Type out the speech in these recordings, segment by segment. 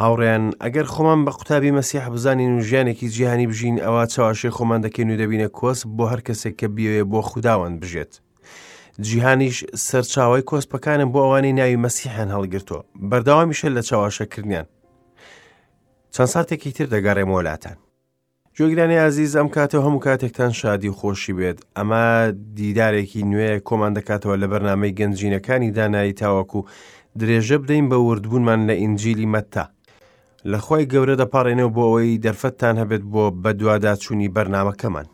هاوڕێیان، ئەگەر خۆمان بە قوتابی مەسیح بزانین و ژیانێکی جیهانی بژین، ئەوا چەواشەی خۆمان دەکەین و دەبینە کۆسپ بۆ هەر کەسێک کە بیەوێ بۆ خوداوەند بژێت. جیهانیش سەرچاوەی کۆسپەکانە بۆ ئەوانەی ناوی مەسیحیان هەڵگرتووە، بەردەوامیشە لە چەواشەکردنیان. چەند ساتێکی تر دەگەڕێمەوە لاتان. گوێگرانی ئازیز ئەم کاتە و هەموو کاتێکتان شادی و خۆشی بێت ئەمە دیدارێکی نوێ کۆمان دەکاتەوە لە بەرنامەی گەنجینەکانی دانایی تاوەکو درێژە بدەین بە وردبوونمان لە ئینجیلی مەتتا لە خۆی گەورە دەپاڕێنەوە بۆ ئەوەی دەرفەتتان هەبێت بۆ بەدواداچوونی بەرنامەکەمان.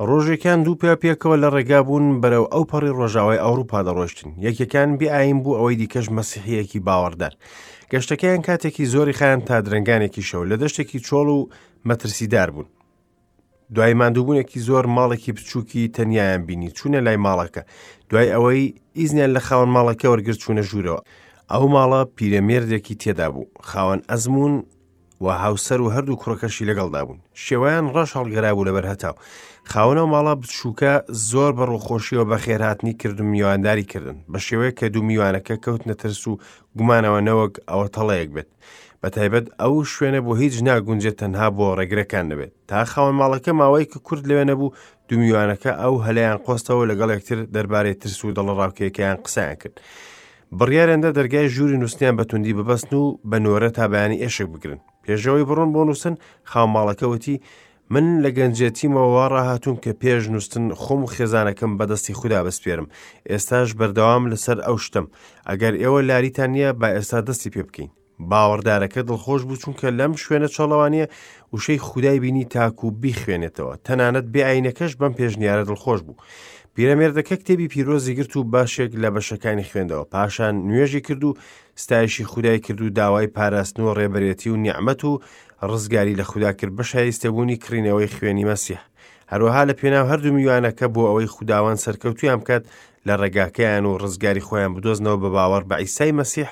ڕۆژێکیان دوو پیا پێکەوە لە ڕێگا بوون بەرەو ئەو پەڕی ڕۆژاوای ئەوروپا دەڕۆشتن یەکێکان بێ ئاین بوو ئەوەی دیکەش مەسیحیەکی باوەڕدار گەشتەکەیان کاتێکی زۆری خایان تا درەنگانێکی شەو لە دەشتێکی چۆڵ و مەترسیدار بوون دوای ماندووبوونێکی زۆر ماڵێکی بچووکی تەنیایان بینی چوونە لای ماڵەکە دوای ئەوەی ئیزنیان لە خاوەن ماڵەکە وەرگرت چوونە ژوورەوە ئەو ماڵە پیرەمێردێکی تێدا بوو خاوەن ئەزموون و هاوسەر و هەردوو کوڕەکەشی لەگەڵدا بوون شێوەیان ڕەش هەڵگەرابوو لەبەر هەتاو خاوەنەو ماڵە بچووکە زۆر بە ڕووخۆشیەوە بەخێرهاتنی کرد و میوانداری کردن بە شێوەیەک کە دوو میوانەکە کەوتنە ترس و گومانەوە نەوەک ئەوە تەڵەیەک بێت بە تایبەت ئەو شوێنە بۆ هیچ ناگونجێت تەنها بۆ ڕێگرەکان نەبێت تا خاوەن ماڵەکە ماوەیەکی کورت لەوێ نەبوو دوو میوانەکە ئەو هەلەیان قۆستەوە لەگەڵ یەکتر دەربارەی ترس و دڵەڕاوکێکەیان قسەیان کرد بڕیاریاندا دەرگای ژووری نووسنیان بە توندی ببەستن و بە نۆرە تا بەیانی ئێشک بگرن. پێشەوەی بڕۆن بۆ نووسن، خاوەنماڵەکە وتی، من لە گەنجێتیمەوە وا ڕاهاتووم کە پێش نووستن خۆم و خێزانەکەم بە دەستی خودا بسپێرم. ئێستاش بەردەوام لەسەر ئەو شتەم. ئەگەر ئێوە لاریتان نییە، با ئێستا دەستی پێ بکەین. باوەڕدارەکە دڵخۆش بوو چونکە لەم شوێنە چۆڵەوانییە وشەی خودای بینی تاکو بیخوێنێتەوە تەنانەت بێ ئاینەکەش بەم پێشنیارە دڵخۆش بوو پیرەمێردەکە کتێبی پیرۆزی گرت و باشێک لە بەشەکانی خوێندەوە پاشان نوێژی کرد و ستایشی خودای کرد و داوای پاراستن و ڕێبەرێتی و نیعمەت و ڕزگاری لە خودا کرد بە شایستەبوونی کڕینەوەی خوێنی مەسیح هەروەها لە پێناو هەردوو میوانەکە بۆ ئەوەی خوداوەند سەرکەوتویان بکات لە ڕێگاکەیان و ڕزگاری خۆیان بدۆزنەوە بە باوەڕ بە عیسای مەسیح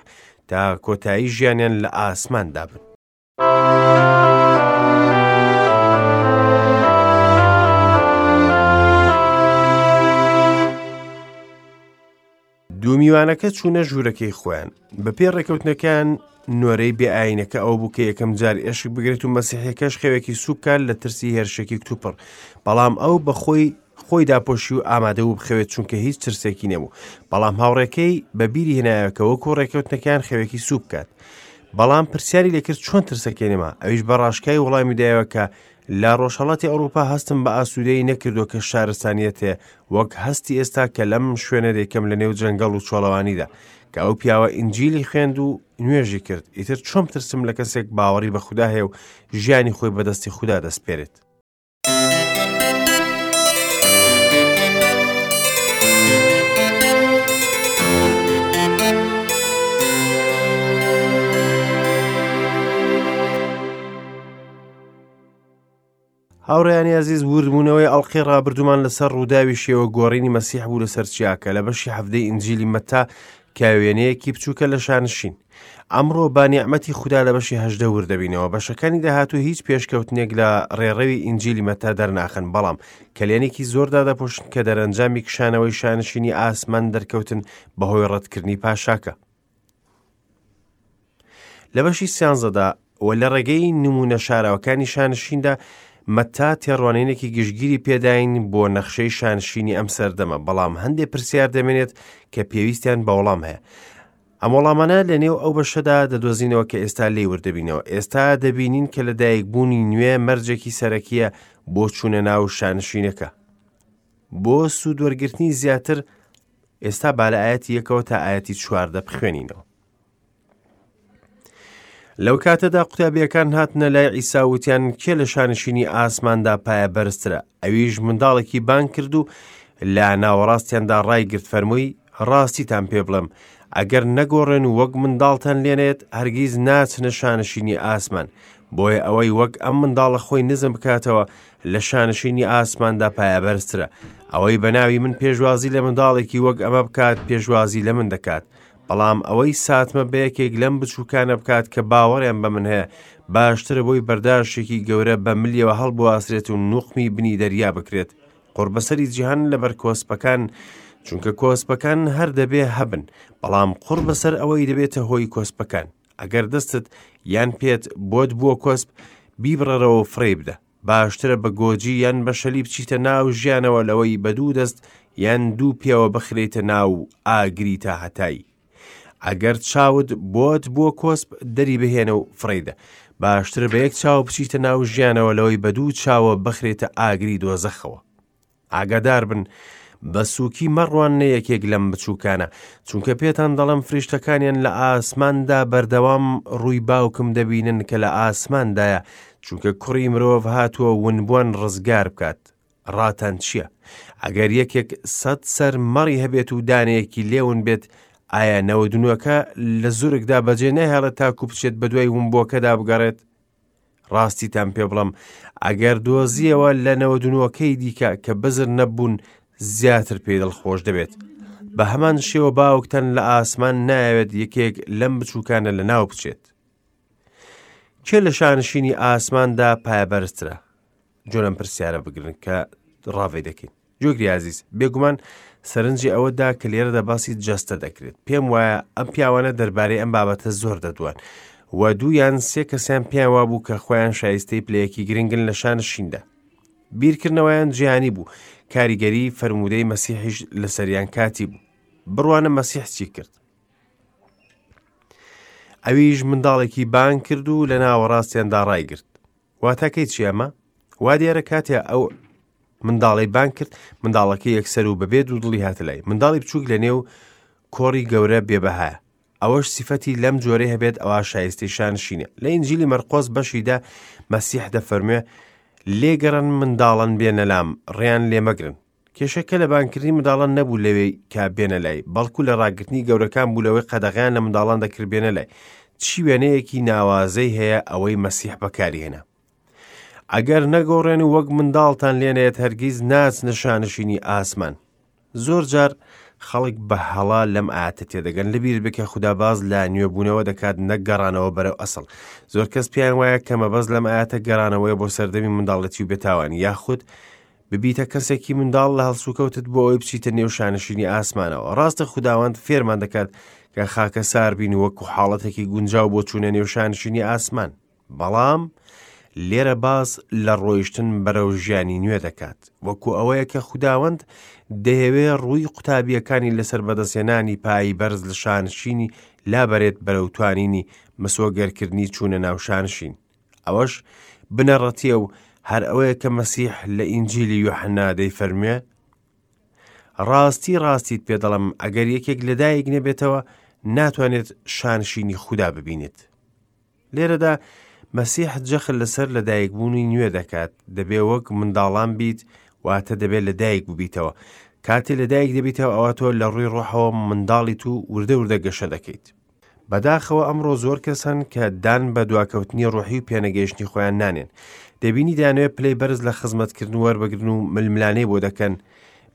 تا کۆتایی ژیانیان لە ئاسماندا بن. دوو میوانەکە چوونە ژوورەکەی خۆیان بەپێی ڕێکەوتنەکەیان نۆرەی بێ ئاینەکە ئەو بوو کە یەکەم جار ئێشک بگرێت و مەسیحەکەش خەوێکی سوکار لە ترسی هێرشێکی کتوپڕ بەڵام ئەو بەخۆی خۆی داپۆشی و ئامادە بوو بخەوێت چونکە هیچ ترسێکی نەبوو بەڵام هاوڕێکەی بە بیری هێنایەوە کە وەکو ڕێکەوتنەکەیان خەوێکی سوو بکات بەڵام پرسیاری لێکرد چۆن ترسەکەی نەما ئەویش بە ڕاشکای وەڵامی دایەوە کە لە ڕۆژهەڵاتی ئەوروپا هەستم بە ئاسوودەیی نەکردووە کە شارستانیەتێ وەک هەستی ئێستا کە لەم شوێنە دەیکەم لە نێو جەنگەڵ و چۆڵەوانیدا کە ئەو پیاوە ئینجیلی خوێند و نوێژی کرد ئیتر چۆن ترسم لە کەسێک باوەڕی بە خودا هەیە و ژیانی خۆی بەدەستی خودا دەسپێرێت هاوڕێیانی ئازیز وردبوونەوەی ئەڵقەی ڕابردوومان لەسەر ڕووداوی شێوە گۆڕینی مەسیح بوو لەسەر چیاکە لە بەشی حەفتەی ئینجیلی مەتا کە وێنەیەکی بچووکە لە شانشین ئەمڕۆ با نیعمەتی خودا لە بەشی هەژدە ورد دەبینەوە بەشەکانی داهاتوو هیچ پێشکەوتنێک لە ڕێڕەوی ئینجیلی مەتا دەرناخەن بەڵام کەلێنێکی زۆر دادەپۆشن کە دەرەنجامی کشانەوەی شانشینی ئاسمان دەرکەوتن بەهۆی ڕەتکردنی پاشاکە لە بەشی سیانزەدا و لە ڕێگەی نمونە شاراوەکانی شانشیندا مەتا تێڕوانینێکی گشتگیری پێداین بۆ نەخشەی شانشینی ئەم سەردەمە بەڵام هەندێک پرسیار دەمێنێت کە پێویستیان بە وەڵام هەیە ئەم وەڵامانە لە نێو ئەو بەشەدا دەدۆزینەوە کە ئێستا لێی وردەبینەوە ئێستا دەبینین کە لە دایکبوونی نوێ مەرجێکی سەرەکیە بۆ چوونە ناو شانشینەکە بۆ سوودوەرگرتنی زیاتر ئێستا با لە ئاەتی یەکەوە تا ئاەتی چواردە بخوێنینەوە لەو کاتەدا قوتابیەکان هاتنە لای عیسا وتیان کێ لە شانشینی ئاسماندا پایە بەرزترە ئەویش منداڵێکی بانگ کرد و لە ناوەڕاستیاندا ڕایگرت فەرمووی ڕاستیتان پێ بڵێم ئەگەر نەگۆڕێن و وەک منداڵتان لێنێت هەرگیز ناچنە شانشینی ئاسمان بۆیە ئەوەی وەک ئەم منداڵە خۆی نزم بکاتەوە لە شانشینی ئاسماندا پایەبەرزترە ئەوەی بە ناوی من پێشوازی لە منداڵێکی وەک ئەمە بکات پێشوازی لە من دەکات بەڵام ئەوەی ساتمە بە یەکێک لەم بچووکانە بکات کە باوەڕیان بە من هەیە باشترە بۆی بەرداشێکی گەورە بە ملیەوە هەڵبواسرێت و نوقمی بنی دەریا بکرێت قوڕبەسەری جیهان لەبەر کۆسپەکان چونکە کۆسپەکان هەر دەبێ هەبن بەڵام قوڕ بەسەر ئەوەی دەبێتە هۆی کۆسپەکان. ئەگەر دەستت یان پێت بۆت بووە کۆسپ، بیبڕەرەوە و فڕێی بدە. باشترە بە گۆجی یان بە شەلی بچیتە ناو ژیانەوە لەوەی بە دوو دەست یان دوو پێوە بخرێیتە ناو ئاگری تاهەتایی. ئەگەر چاوت بۆت بووە کۆسپ دەری بهێنە و فڕێیدە. باشترە بە یەک چاو بچیتە ناو ژیانەوە لەوەی بە دوو چاوە بخرێتە ئاگری دۆزەخەوە. ئاگادار بن، بە سووکی مەڕواننە یەکێک لەم بچووکانە، چونکە پێتان دەڵێم فریشتەکانیان لە ئاسماندا بەردەوام ڕووی باوکم دەبینن کە لە ئاسماندایە، چونکە کوڕی مرۆڤ هاتووە ونبووان ڕزگار بکات. ڕاتان چییە؟ ئەگەر یەکێک سەد سەر مەڕی هەبێت و دانەیەکی لێون بێت، ئایا نەوەدونۆکە لە زورگدا بەجێ ناهێڵێت تاکو بچێت بەدوای ونبووەکەدا بگەڕێت؟ ڕاستیتان پێ بڵێم ئەگەر دۆزیەوە لە نەوەدونۆکەی دیکە کە بزر نەبوون زیاتر پێی دڵخۆش دەبێت. بە هەمان شێوە باوکتان لە ئاسمان نایەوێت یەکێک لەم بچووکانە لە ناو بچێت. کێ لە شانشینی ئاسماندا پایەبەرزترە؟ جۆ لەم پرسیارە بگرن کە ڕاڤەی دەکەین. جۆگری ئازیز، بێگومان سەرنجی ئەوە دا کە لێرەدا باسی جەستە دەکرێت. پێم وایە ئەم پیاوانە دەربارەی ئەم بابەتە زۆر دەدوان و دوو یان سێ کەسیان پێیان وابوو کە خۆیان شایستەی پلەیەکی گرنگن لە شانشیندا. بیرکردنەوەیان جیهانی بوو، کاریگەری فەرموودەی مەسیحیش لەسەریان کاتی بوو. بڕوانە مەسیح چی کرد. ئەویش منداڵێکی بانگ کرد و لە ناوەڕاستیاندا ڕایگرت. واتاکەی چی ئەمە؟ وا دیارە کاتێ ئەو منداڵەی بانگ کرد منداڵەکە یەکسەر و بەبێ دوو دڵی هاتە لای منداڵی بچووک لە نێو کۆڕی گەورە بێبەهایە ئەوەش سیفەتی لەم جۆرەی هەبێت ئەوا شایستەی شانشینە لە ئینجیلی مەرقۆس بەشیدا مەسیح دەفەرموێ لێگەڕن منداڵان بێنە لام ڕێیان لێ مەگرن کێشەکە لە بانگکردنی منداڵان نەبوو لەوێی کە بێنە لای، بەڵکو لە ڕاگرتنی گەورەکان بوو لەوەی قەدەغەیان لە منداڵان دەکرد بێنە لای. چی وێنەیەکی ناوازەی هەیە ئەوەی مەسیح بەکاری هێنا. ئەگەر نەگۆڕێن و وەک منداڵتان لێنێت هەرگیز ناچنە شانشینی ئاسمان. زۆر جار خەڵک بە هەڵا لەم ئاەتە تێدەگەن لەبیر بکە خودا باز لە نوێبوونەوە دەکات نەک گەڕانەوە بەرەو ئەسڵ زۆر کەس پێیان وایە کە مەبەست لەم ئاەتە گەڕانەوەی بۆ سەردەمی منداڵەتی و بێتاوانی یاخود ببیتە کەسێکی منداڵ لە هەڵسوکەوتت بۆ ئەوەی بچیتە نێو شانشینی ئاسمانەوە. ڕاستە خوداوەند فێرمان دەکات کە خاکەسار بین وەکو حاڵەتێکی گونجاو بۆ چوونە نێو شانشینی ئاسمان. بەڵام لێرە باس لە ڕۆیشتن بەرەو ژیانی نوێ دەکات. وەکو ئەوەیە کە خوداوەند دەیەوێ ڕووی قوتابییەکانی لەسەر بەدەستهێنانی پایی بەرز لە شانشینی لابەرێت بەرەو توانینی مسۆگەرکردنی چوونە ناو شانشین. ئەوەش بنەڕەتیە و هەر ئەوەیە کە مەسیح لە ئینجیلی یۆحەنا دەیفەرموێ ڕاستی ڕاستیت پێ دەڵێم ئەگەر یەکێک لەدایک نەبێتەوە ناتوانێت شانشینی خودا ببینێت لێرەدا مەسیح جەخت لەسەر لەدایکبوونی نوێ دەکات دەبێ وەک منداڵان بیت واتە دەبێت لەدایک ببیتەوە کاتێ لەدایک دەبیتەوە ئەوە تۆ لە ڕووی ڕۆحەوە منداڵیت و وردە وردە گەشە دەکەیت بەداخەوە ئەمڕۆ زۆر کەس هەن کە دان بە دواکەوتنی ڕۆحی و پێنەگەیشتنی خۆیان نانێن. دەبینی دەیانەوێت پلەی بەرز لە خزمەتکردن وەربگرن و ململانێی بۆ دەکەن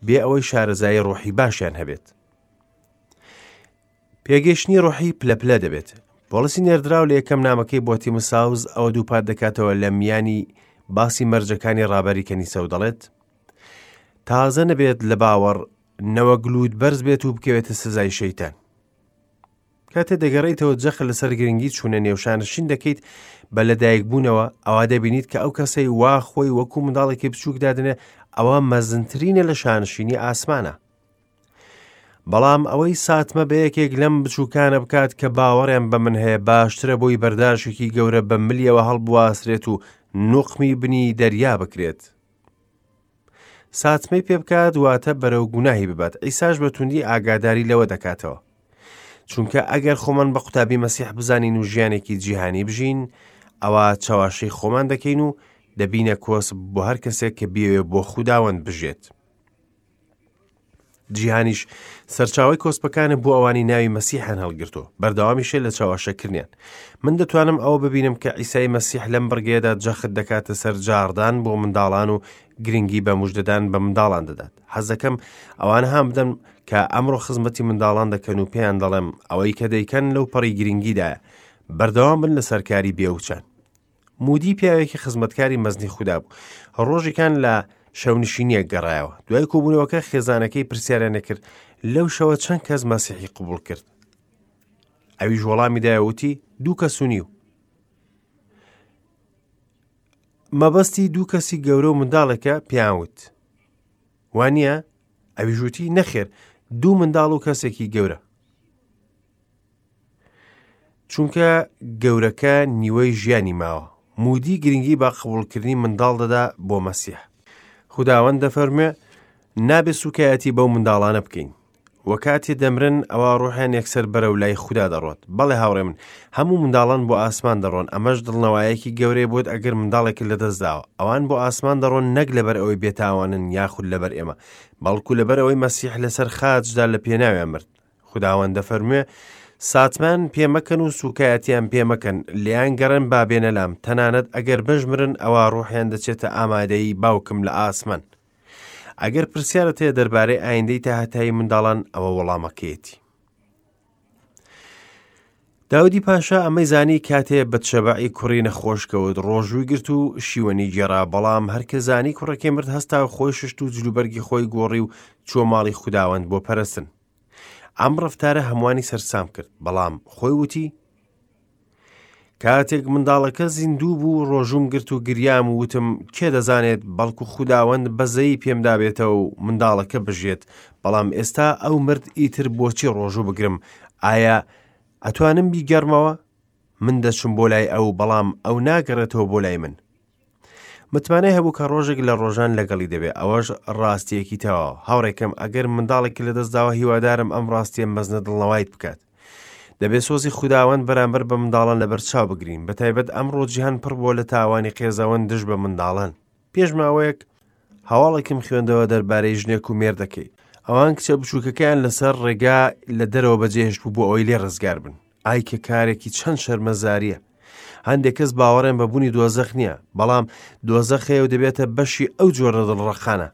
بێ ئەوەی شارەزایی ڕۆحی باشیان هەبێت. پێگەیشتنی ڕۆحی پلە پلە دەبێت. پۆڵسی نێردراو لە یەکەم نامەکەی بۆ تیموساوس ئەوە دووپات دەکاتەوە لە میانی باسی مەرجەکانی ڕابەری کەنیسە و دەڵێت تازە نەبێت لە باوەڕ نەوەک لووت بەرز بێت و بکەوێتە سزای شەیتان. کاتێ دەگەڕێیتەوە جەخت لەسەر گرنگی چوونە نێو شانشین دەکەیت بە لەدایکبوونەوە ئەوا دەبینیت کە ئەو کەسەی وا خۆی وەکو منداڵێکی بچووک دادنێ ئەوە مەزنترینە لە شانشینی ئاسمانە بەڵام ئەوەی ساتمە بە یەکێک لەم بچووکانە بکات کە باوەڕیان بە من هەیە باشترە بۆی بەرداشێکی گەورە بە ملیەوە هەڵبواسرێت و نوقمی بنی دەریا بکرێت ساتمەی پێ بکات واتە بەرەو گوناهی ببات ئیساش بە توندی ئاگاداری لەوە دەکاتەوە چونکە ئەگەر خۆمان بە قوتابی مەسیح بزانین و ژیانێکی جیهانی بژین ئەوە چەواشەی خۆمان دەکەین و دەبینە کۆسپ بۆ هەر کەسێک کە بیەوێ بۆ خوداوەند بژێت جیهانیش سەرچاوەی کۆسپەکانە بۆ ئەوانی ناوی مەسیحیان هەڵگرتووە، بەردەوامیشە لە چەواشەکردنیان. من دەتوانم ئەوە ببینم کە عیسای مەسیح لەم بڕگەیەدا جەخت دەکاتە سەر جاڕدان بۆ منداڵان و گرنگی بە مژدەدان بە منداڵان دەدات. حەز دەکەم ئەوانە هان بدەم کە ئەمڕۆ خزمەتی منداڵان دەکەن و پێیان دەڵێم ئەوەی کە دەیکەن لەو پەڕی گرنگیدایە. بەردەوام بن لەسەر کاری بێوچان. مودی پیاوێکی خزمەتکاری مەزنی خودا بوو. ڕۆژێکان لە شەونشینیەک گەڕایەوە. دوای کۆبوونەوەکە خێزانەکەی پرسیاریان لێکرد لەو شەوە چەند کەس مەسیحی قبوڵ کرد؟ ئەویش وەڵامی دایەوە وتی دوو کەس و نیو. مەبەستی دوو کەسی گەورە و منداڵێکە پێیان وت. وانییە؟ ئەویش وتی، نەخێر، دوو منداڵ و کەسێکی گەورە. چونکە گەورەکە نیوەی ژیانی ماوە. مودی گرنگی بە قبوڵکردنی منداڵ دەدا بۆ مەسیح. خوداوەند دەفەرموێ، نابێ سوکایەتی بەو منداڵانە بکەین. وە کاتێ دەمرن ئەوا ڕۆحیان یەکسەر بەرەو لای خودا دەڕۆت. بەڵێ هاوڕێ من، هەموو منداڵان بۆ ئاسمان دەڕۆن، ئەمەش دڵنەوایەکی گەورەیە بۆت ئەگەر منداڵێکت لەدەست داوە. ئەوان بۆ ئاسمان دەڕۆن نەک لەبەر ئەوەی بێتاوانن یاخود لەبەر ئێمە، بەڵکو لەبەر ئەوەی مەسیح لەسەر خاچدا لە پێناویان مرد. خوداوەند دەفەرموێ، ساتمان پێ مەکەن و سوکایەتیان پێ مەکەن، لێیان گەڕێن با بێنە لام، تەنانەت ئەگەر بشمرن ئەوا ڕوحیان دەچێتە ئامادەیی باوکم لە ئاسمان. ئەگەر پرسیارت هەیە دەربارەی ئایندەی تاهەتایی منداڵان ئەوە وەڵامەکەیەتی. داودی پاشا ئەمەی زانی کاتێ بەتشەبەعی کوڕی نەخۆش کەوت ڕۆژووی گرت و شیوەنی گێڕا بەڵام هەرکە زانی کوڕەکەی مرد هەستا و خۆی ششت و جلوبەرگی خۆی گۆڕی و چووە ماڵی خوداوەند بۆ پەرستن ئەم ڕەفتارە هەمووانی سەرسام کرد بەڵام خۆی وتی کاتێک منداڵەکە زیندوو بوو ڕۆژوم گرت و گریام و وتم کێ دەزانێت بەڵکو خوداوەند بەزەیی پێمدا بێتەوە و منداڵەکە بژێت بەڵام ئێستا ئەو مرد ئیتر بۆچی ڕۆژوو بگرم ئایا ئەتوانم بیگەڕمەوە من دەچم بۆ لای ئەو بەڵام ئەو ناگەڕێتەوە بۆ لای من متمانەی هەبوو کە ڕۆژێک لە ڕۆژان لەگەڵی دەبێ ئەوەش ڕاستیەکی تەواوە هاوڕێکەم ئەگەر منداڵێکی لەدەستداوە هیوادارم ئەم ڕاستیە مەزنە دڵنەوایت بکات دەبێ سۆزی خوداوەند بەرامبەر بە منداڵان لەبەرچاو بگرین بەتایبەت ئەمڕۆ جیهان پڕ بووە لە تاوانی قێزەوەن دژ بە منداڵان پێش ماوەیەک هەواڵێکم خوێندەوە دەربارەی ژنێک و مێردەکەی ئەوان کچە بچووکەکەیان لەسەر ڕێگا لە دەرەوە بەجێهێشت بوو بۆ ئەوەی لێ ڕزگار بن ئای کە کارێکی چەند شەرمەزاریە هەندێک کەس باوەڕێن بە بوونی دۆزەخ نییە بەڵام دۆزەخ هەیە و دەبێتە بەشی ئەو جۆرە دڵڕەقانە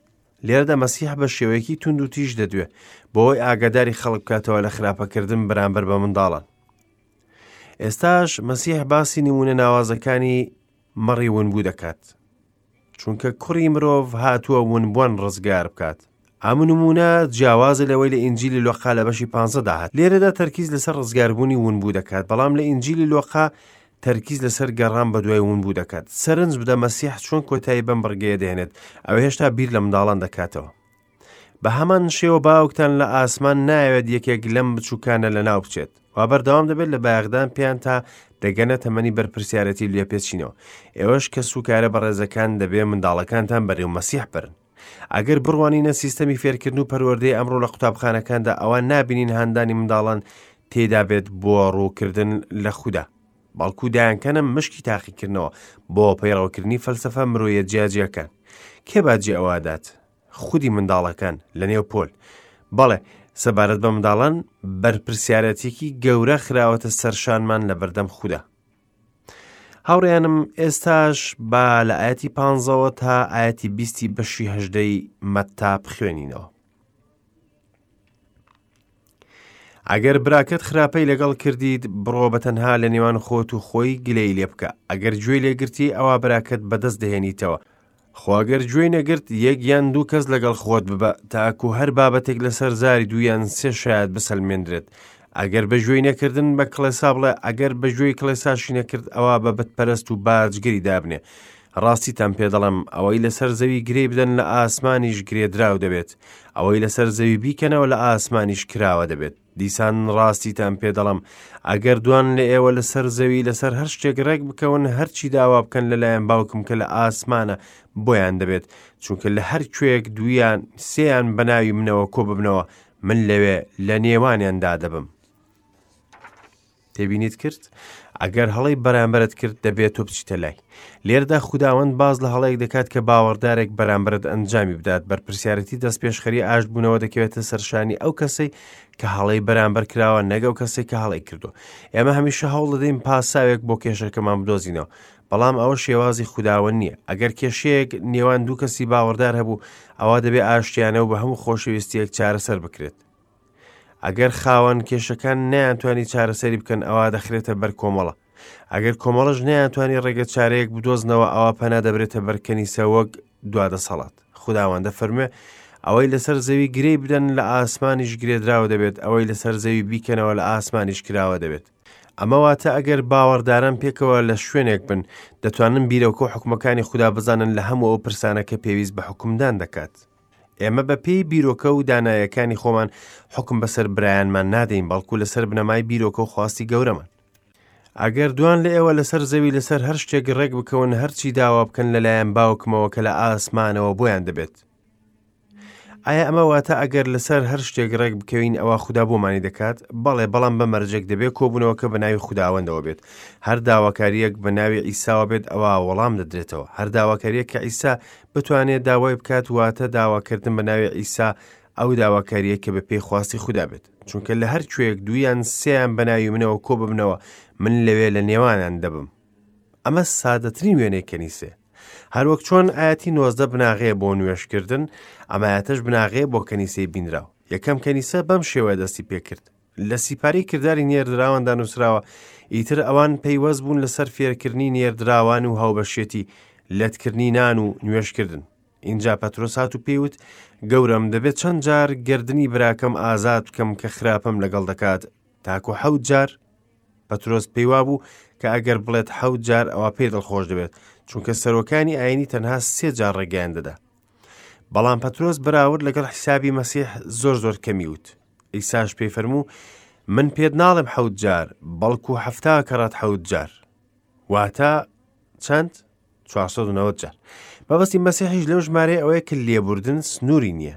لێرەدا مەسیح بە شێوەیەکی توند و تیژ دەدوێ بۆی ئاگاداری خەڵک بکاتەوە لە خراپەکردن بەرامبەر بە منداڵان ئێستاش مەسیح باسی نمونە ناوازەکانی مەڕی ونبوو دەکات چونکە کوڕی مرۆڤ هاتووە ونبووان ڕزگار بکات ئەم نمونە جیاوازە لەوەی لە ئینجیلی لۆقا لە بەشی پانزەدا هات لێرەدا تەرکیز لەسەر ڕزگاربوونی ونبوو دەکات بەڵام لە ئینجیلی لۆقا تەرکیز لەسەر گەڕان بەدوای ونبوو دەکات سەرنج بدە مەسیح چۆن کۆتایی بەم بڕگەیە دێنێت ئەو هێشتا بیر لە منداڵان دەکاتەوە بە هەمان شێوە باوکتان لە ئاسمان نایەوێت یەکێک لەم بچووکانە لەناو بچێت وا بەردەوام دەبێت لە بایەخدان پێیان تا دەگەنە تەمەنی بەرپرسیارەتی لێپێچینەوە ئێوەش کە سوکارە بەڕێزەکان دەبێ منداڵەکانتان بەرەو مەسیح بەرن ئەگەر بڕوانینە سیستەمی فێرکردن و پەروەردەی ئەمڕۆ لە قوتابخانەکاندا ئەوە نابینین هاندانی منداڵان تێدا بێت بۆ ڕووکردن لە خودا بەڵکو دایانکەنە مشکی تاقیکردنەوە بۆ پەیڕەوکردنی فەلسەفە مرۆیە جیاجیاکان کێ باجی ئەوادات خودی منداڵەکان لە نێو پۆل بەڵێ سەبارەت بە منداڵان بەرپرسیارەتێکی گەورە خراوەتە سەرشانمان لە بەردەم خودا هاوڕێیانم ئێستاش با لە ئاەتی پانزەوە تا ئاەتی بیستی بەشی هەژدەی مەتتا بخوێنینەوە. ئەگەر براکەت خراپەی لەگەڵ کردیت بڕۆ بە تەنها لە نێوان خۆت و خۆی گلەی لێ بکە ئەگەر گوێی لێگرتی ئەوا براکەت بەدەست دەهێنیتەوە خۆ ئەگەر گوێی نەگرت یەک یان دوو کەس لەگەڵ خۆت ببە تاکو هەر بابەتێک لەسەر زاری دوو یان سێ شایەت بسەلمێندرێت ئەگەر بە گوێی نەکردن بە کڵێسا بڵێ ئەگەر بە گوێی کڵێساشی نەکرد ئەوا بە بتپەرست و باجگری دابنێ ڕاستیتان پێ دەڵێم ئەوەی لەسەر زەوی گرێ بدەن لە ئاسمانیش گرێدراو دەبێت ئەوەی لەسەر زەوی بیکەنەوە لە ئاسمانیش کراوە دەبێت دیسان ڕاستیتان پێ دەڵێم ئەگەر دوان لە ئێوە لەسەر زەوی لەسەر هەر شتێک ڕێک بکەون هەرچی داوا بکەن لەلایەن باوکم کە لە ئاسمانە بۆیان دەبێت چونکە لە هەر کوێیەک دوویان سێیان بە ناوی منەوە کۆ ببنەوە من لەوێ لە نێوانیاندا دەبم. تێبینیت کرد؟ ئەگەر هەڵەی بەرامبەرت کرد دەبێت تۆ بچیتە لای. لێرەدا خوداوەند باز لە هەڵەیەک دەکات کە باوەڕدارێک بەرامبەرت ئەنجامی بدات بەرپرسیارەتی دەستپێشخەری ئاشتبوونەوە دەکەوێتە سەرشانی ئەو کەسەی کە هەڵەی بەرامبەر کراوە نەک ئەو کەسێک کە هەڵەی کردو ئێمە هەمیشە هەوڵ دەدەین پاساوێک بۆ کێشەکەمان بدۆزینەوە بەڵام ئەوە شێوازی خوداوەند نییە ئەگەر کێشەیەک نێوان دوو کەسی باوەڕدار هەبوو ئەوە دەبێ ئاشتیانە و بە هەموو خۆشەویستیەک چارەسەر بکرێت ئەگەر خاوەن کێشەکان نەیانتوانی چارەسەری بکەن ئەوا دەخرێتە بەر کۆمەڵە ئەگەر کۆمەڵەش نەیانتوانی ڕێگە چارەیەک بدۆزنەوە ئەوا پەنا دەبرێتە بەر کەنیسە وەک دوا دەسەڵات خوداوەندە فەرموێ ئەوەی لەسەر زەوی گرێی بدەن لە ئاسمانیش گرێدراوە دەبێت ئەوەی لەسەر زەوی بیکەنەوە لە ئاسمانیش کراوە دەبێت. ئەمە واتە ئەگەر باوەڕداران پێکەوە لە شوێنێک بن، دەتوانن بیرۆکە و حوکمەکانی خودا بزانن لە هەموو ئەو پرسانە کە پێویست بە حوکمدان دەکات. ئێمە بە پێی بیرۆکە و دانایەکانی خۆمان حوکم بەسەر برایانمان نادەین، بەڵکو لەسەر بنەمای بیرۆکە و خواستی گەورەمان. ئەگەر دوان لە ئێوە لەسەر زەوی لەسەر هەر شتێک ڕێک بکەون، هەرچی داوا بکەن لەلایەن باوکمەوە کە لە ئاسمانەوە بۆیان دەبێت. ئایا ئەمە واتە ئەگەر لەسەر هەر شتێک ڕێک بکەوین ئەوە خودا بۆمانی دەکات؟ بەڵێ، بەڵام بە مەرجێک دەبێت کۆبوونەوەکە بە ناوی خوداوەندەوە بێت. هەر داواکارییەک بە ناوی عیساوە بێت ئەوا وەڵام دەدرێتەوە. هەر داواکارییەک کە عیسا بتوانێت داوای بکات واتە داواکردن بە ناوی عیسا ئەو داواکارییە کە بە پێی خواستی خودا بێت. چونکە لە هەر کوێیەک دوویان سێیان بە ناوی منەوە کۆ ببنەوە من لەوێ لە نێوانیان دەبم. ئەمە سادەترین وێنەی کەنیسەیە. هەروەک چۆن ئاەتی 19 بناغەیە بۆ نوێژکردن، ئەم ئاەتەش بناغەیە بۆ کەنیسەی بینراو. یەکەم کەنیسە بەم شێوەیە دەستی پێکرد. لە سیپارەی کرداری نێردراواندا نووسراوە، ئیتر ئەوان پەیوەست بوون لەسەر فێرکردنی نێردراوان و هاوبەشێتی، لەتکردنی نان و نوێژکردن. ئینجا پەترۆس هات و پێی وت، گەورەم، دەبێت چەند جار گەردنی براکەم ئازاد بکەم کە خراپەم لەگەڵ دەکات، تاکو حەوت جار؟ پەترۆس پێی وابوو کە ئەگەر بڵێت حەوت جار ئەوا پێی دڵخۆش دەبێت، چونکە سەرۆکانی ئایینی تەنها سێ جار ڕێگەیان دەدا. بەڵام پەترۆس بەراورد لەگەڵ حیسابی مەسیح زۆر زۆر کەمی وت. عیساش پێی فەرموو، من پێت ناڵێم حەوت جار، بەڵکو 70 کەڕەت حەوت جار. واتە چەند؟ 490 جار. مەبەستی مەسیحیش لەو ژمارەیە ئەوەیە کە لێبوردن سنووری نییە.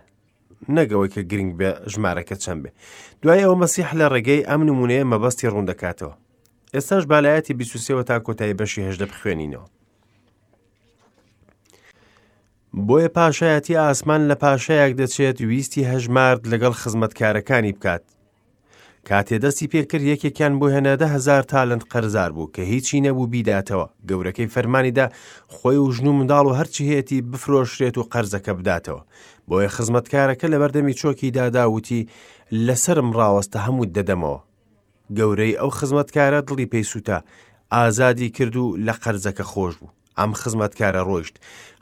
نەک ئەوەی کە گرنگ بێ ژمارەکە چەند بێ. دوای ئەوە مەسیح لە ڕێگەی ئەم نمونەیە مەبەستی ڕوون دەکاتەوە. ئێستاش با لە ئایەتی 23 تا کۆتایی بەشی 18 بخوێنینەوە. بۆیە پاشایەتی ئاسمان لە پاشایەک دەچێت ویستی هەژمارد لەگەڵ خزمەتکارەکانی بکات. کاتێ دەستی پێکرد یەکێکیان بۆ هێنا 10,000 تالنت قەرزار بوو کە هیچی نەبوو بیداتەوە. گەورەکەی فەرمانی دا خۆی و ژن و منداڵ و هەرچی هەیەتی بفرۆشرێت و قەرزەکە بداتەوە. بۆیە خزمەتکارەکە لەبەردەمی چۆکی دادا وتی لەسەرم ڕاوەستە هەمووت دەدەمەوە. گەورەی ئەو خزمەتکارە دڵی پێی سووتا، ئازادی کرد و لە قەرزەکە خۆش بوو. ئەم خزمەتکارە ڕۆیشت.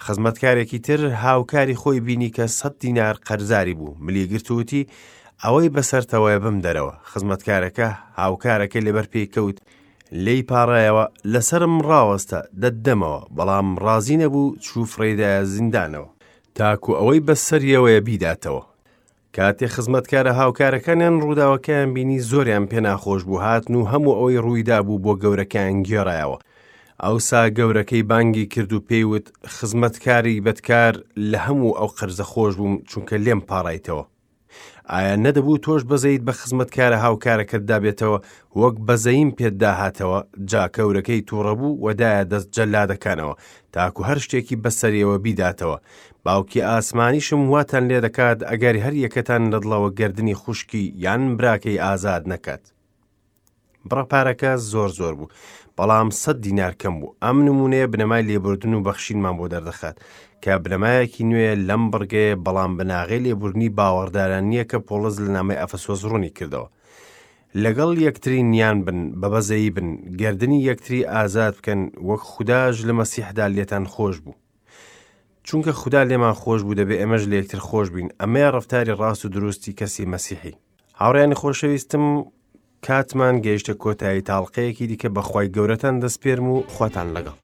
خزمەتکارێکی تر هاوکاری خۆی بینی کە 100 دینار قەرزاری بوو، ملی گرت و وتی، ئەوەی بەسەرتەوەیە بمدەرەوە. خزمەتکارەکە هاوکارەکەی لەبەر پێی کەوت، لێی پاڕایەوە، لەسەرم ڕاوەستە، دەتدەمەوە. بەڵام ڕازی نەبوو، چوو فڕێیدایە زیندانەوە، تاکو ئەوەی بەسەریەوەیە بیداتەوە. کاتێ خزمەتکارە هاوکارەکانیان ڕووداوەکەیان بینی زۆریان پێ ناخۆش بوو، هاتن و هەموو ئەوەی ڕوویدابوو بۆ گەورەکەیان گێڕایەوە. ئەوسا گەورەکەی بانگی کرد و پێی وت، خزمەتکاری بەدکار، لە هەموو ئەو قەرزە خۆش بووم، چونکە لێم پاڕایتەوە. ئایا نەدەبوو تۆش بەزەیت بە خزمەتکارە هاوکارەکەتدا بێتەوە، وەک بەزەییم پێتدا هاتەوە؟ جا گەورەکەی تووڕە بوو و دایە دەست جەلادەکانەوە، تاکو هەر شتێکی بەسەریەوە بیداتەوە. باوکی ئاسمانیشم واتان لێ دەکات ئەگەر هەر یەکەتان لە دڵەوە گەردنی خوشکی یان براکەی ئازاد نەکات. بڕە پارەکە زۆر زۆر بوو، بەڵام 100 دینار کەم بوو. ئەم نمونەیە بنەمای لێبوردن و بەخشینمان بۆ دەردەخات کە بنەمایەکی نوێیە لەم بڕگەیە، بەڵام بناغەی لێبوردنی باوەڕداران نییە کە پۆڵس لە نامەی ئەفەسۆس ڕوونی کردەوە. لەگەڵ یەکتری نیان بن، بە بەزەیی بن، گەردنی یەکتری ئازاد بکەن، وەک خوداش لە مەسیحدا لێتان خۆش بوو. چونکە خودا لێمان خۆش بوو دەبێ ئێمەش لە یەکتر خۆش بین. ئەمەیە ڕەفتاری ڕاست و دروستی کەسی مەسیحی. هاوڕێیانی خۆشەویستم، کاتمان گەیشتە کۆتایی تاڵقەیەکی دیکە بە خوای گەورەتان دەسپێرم و خواتان لەگەڵ.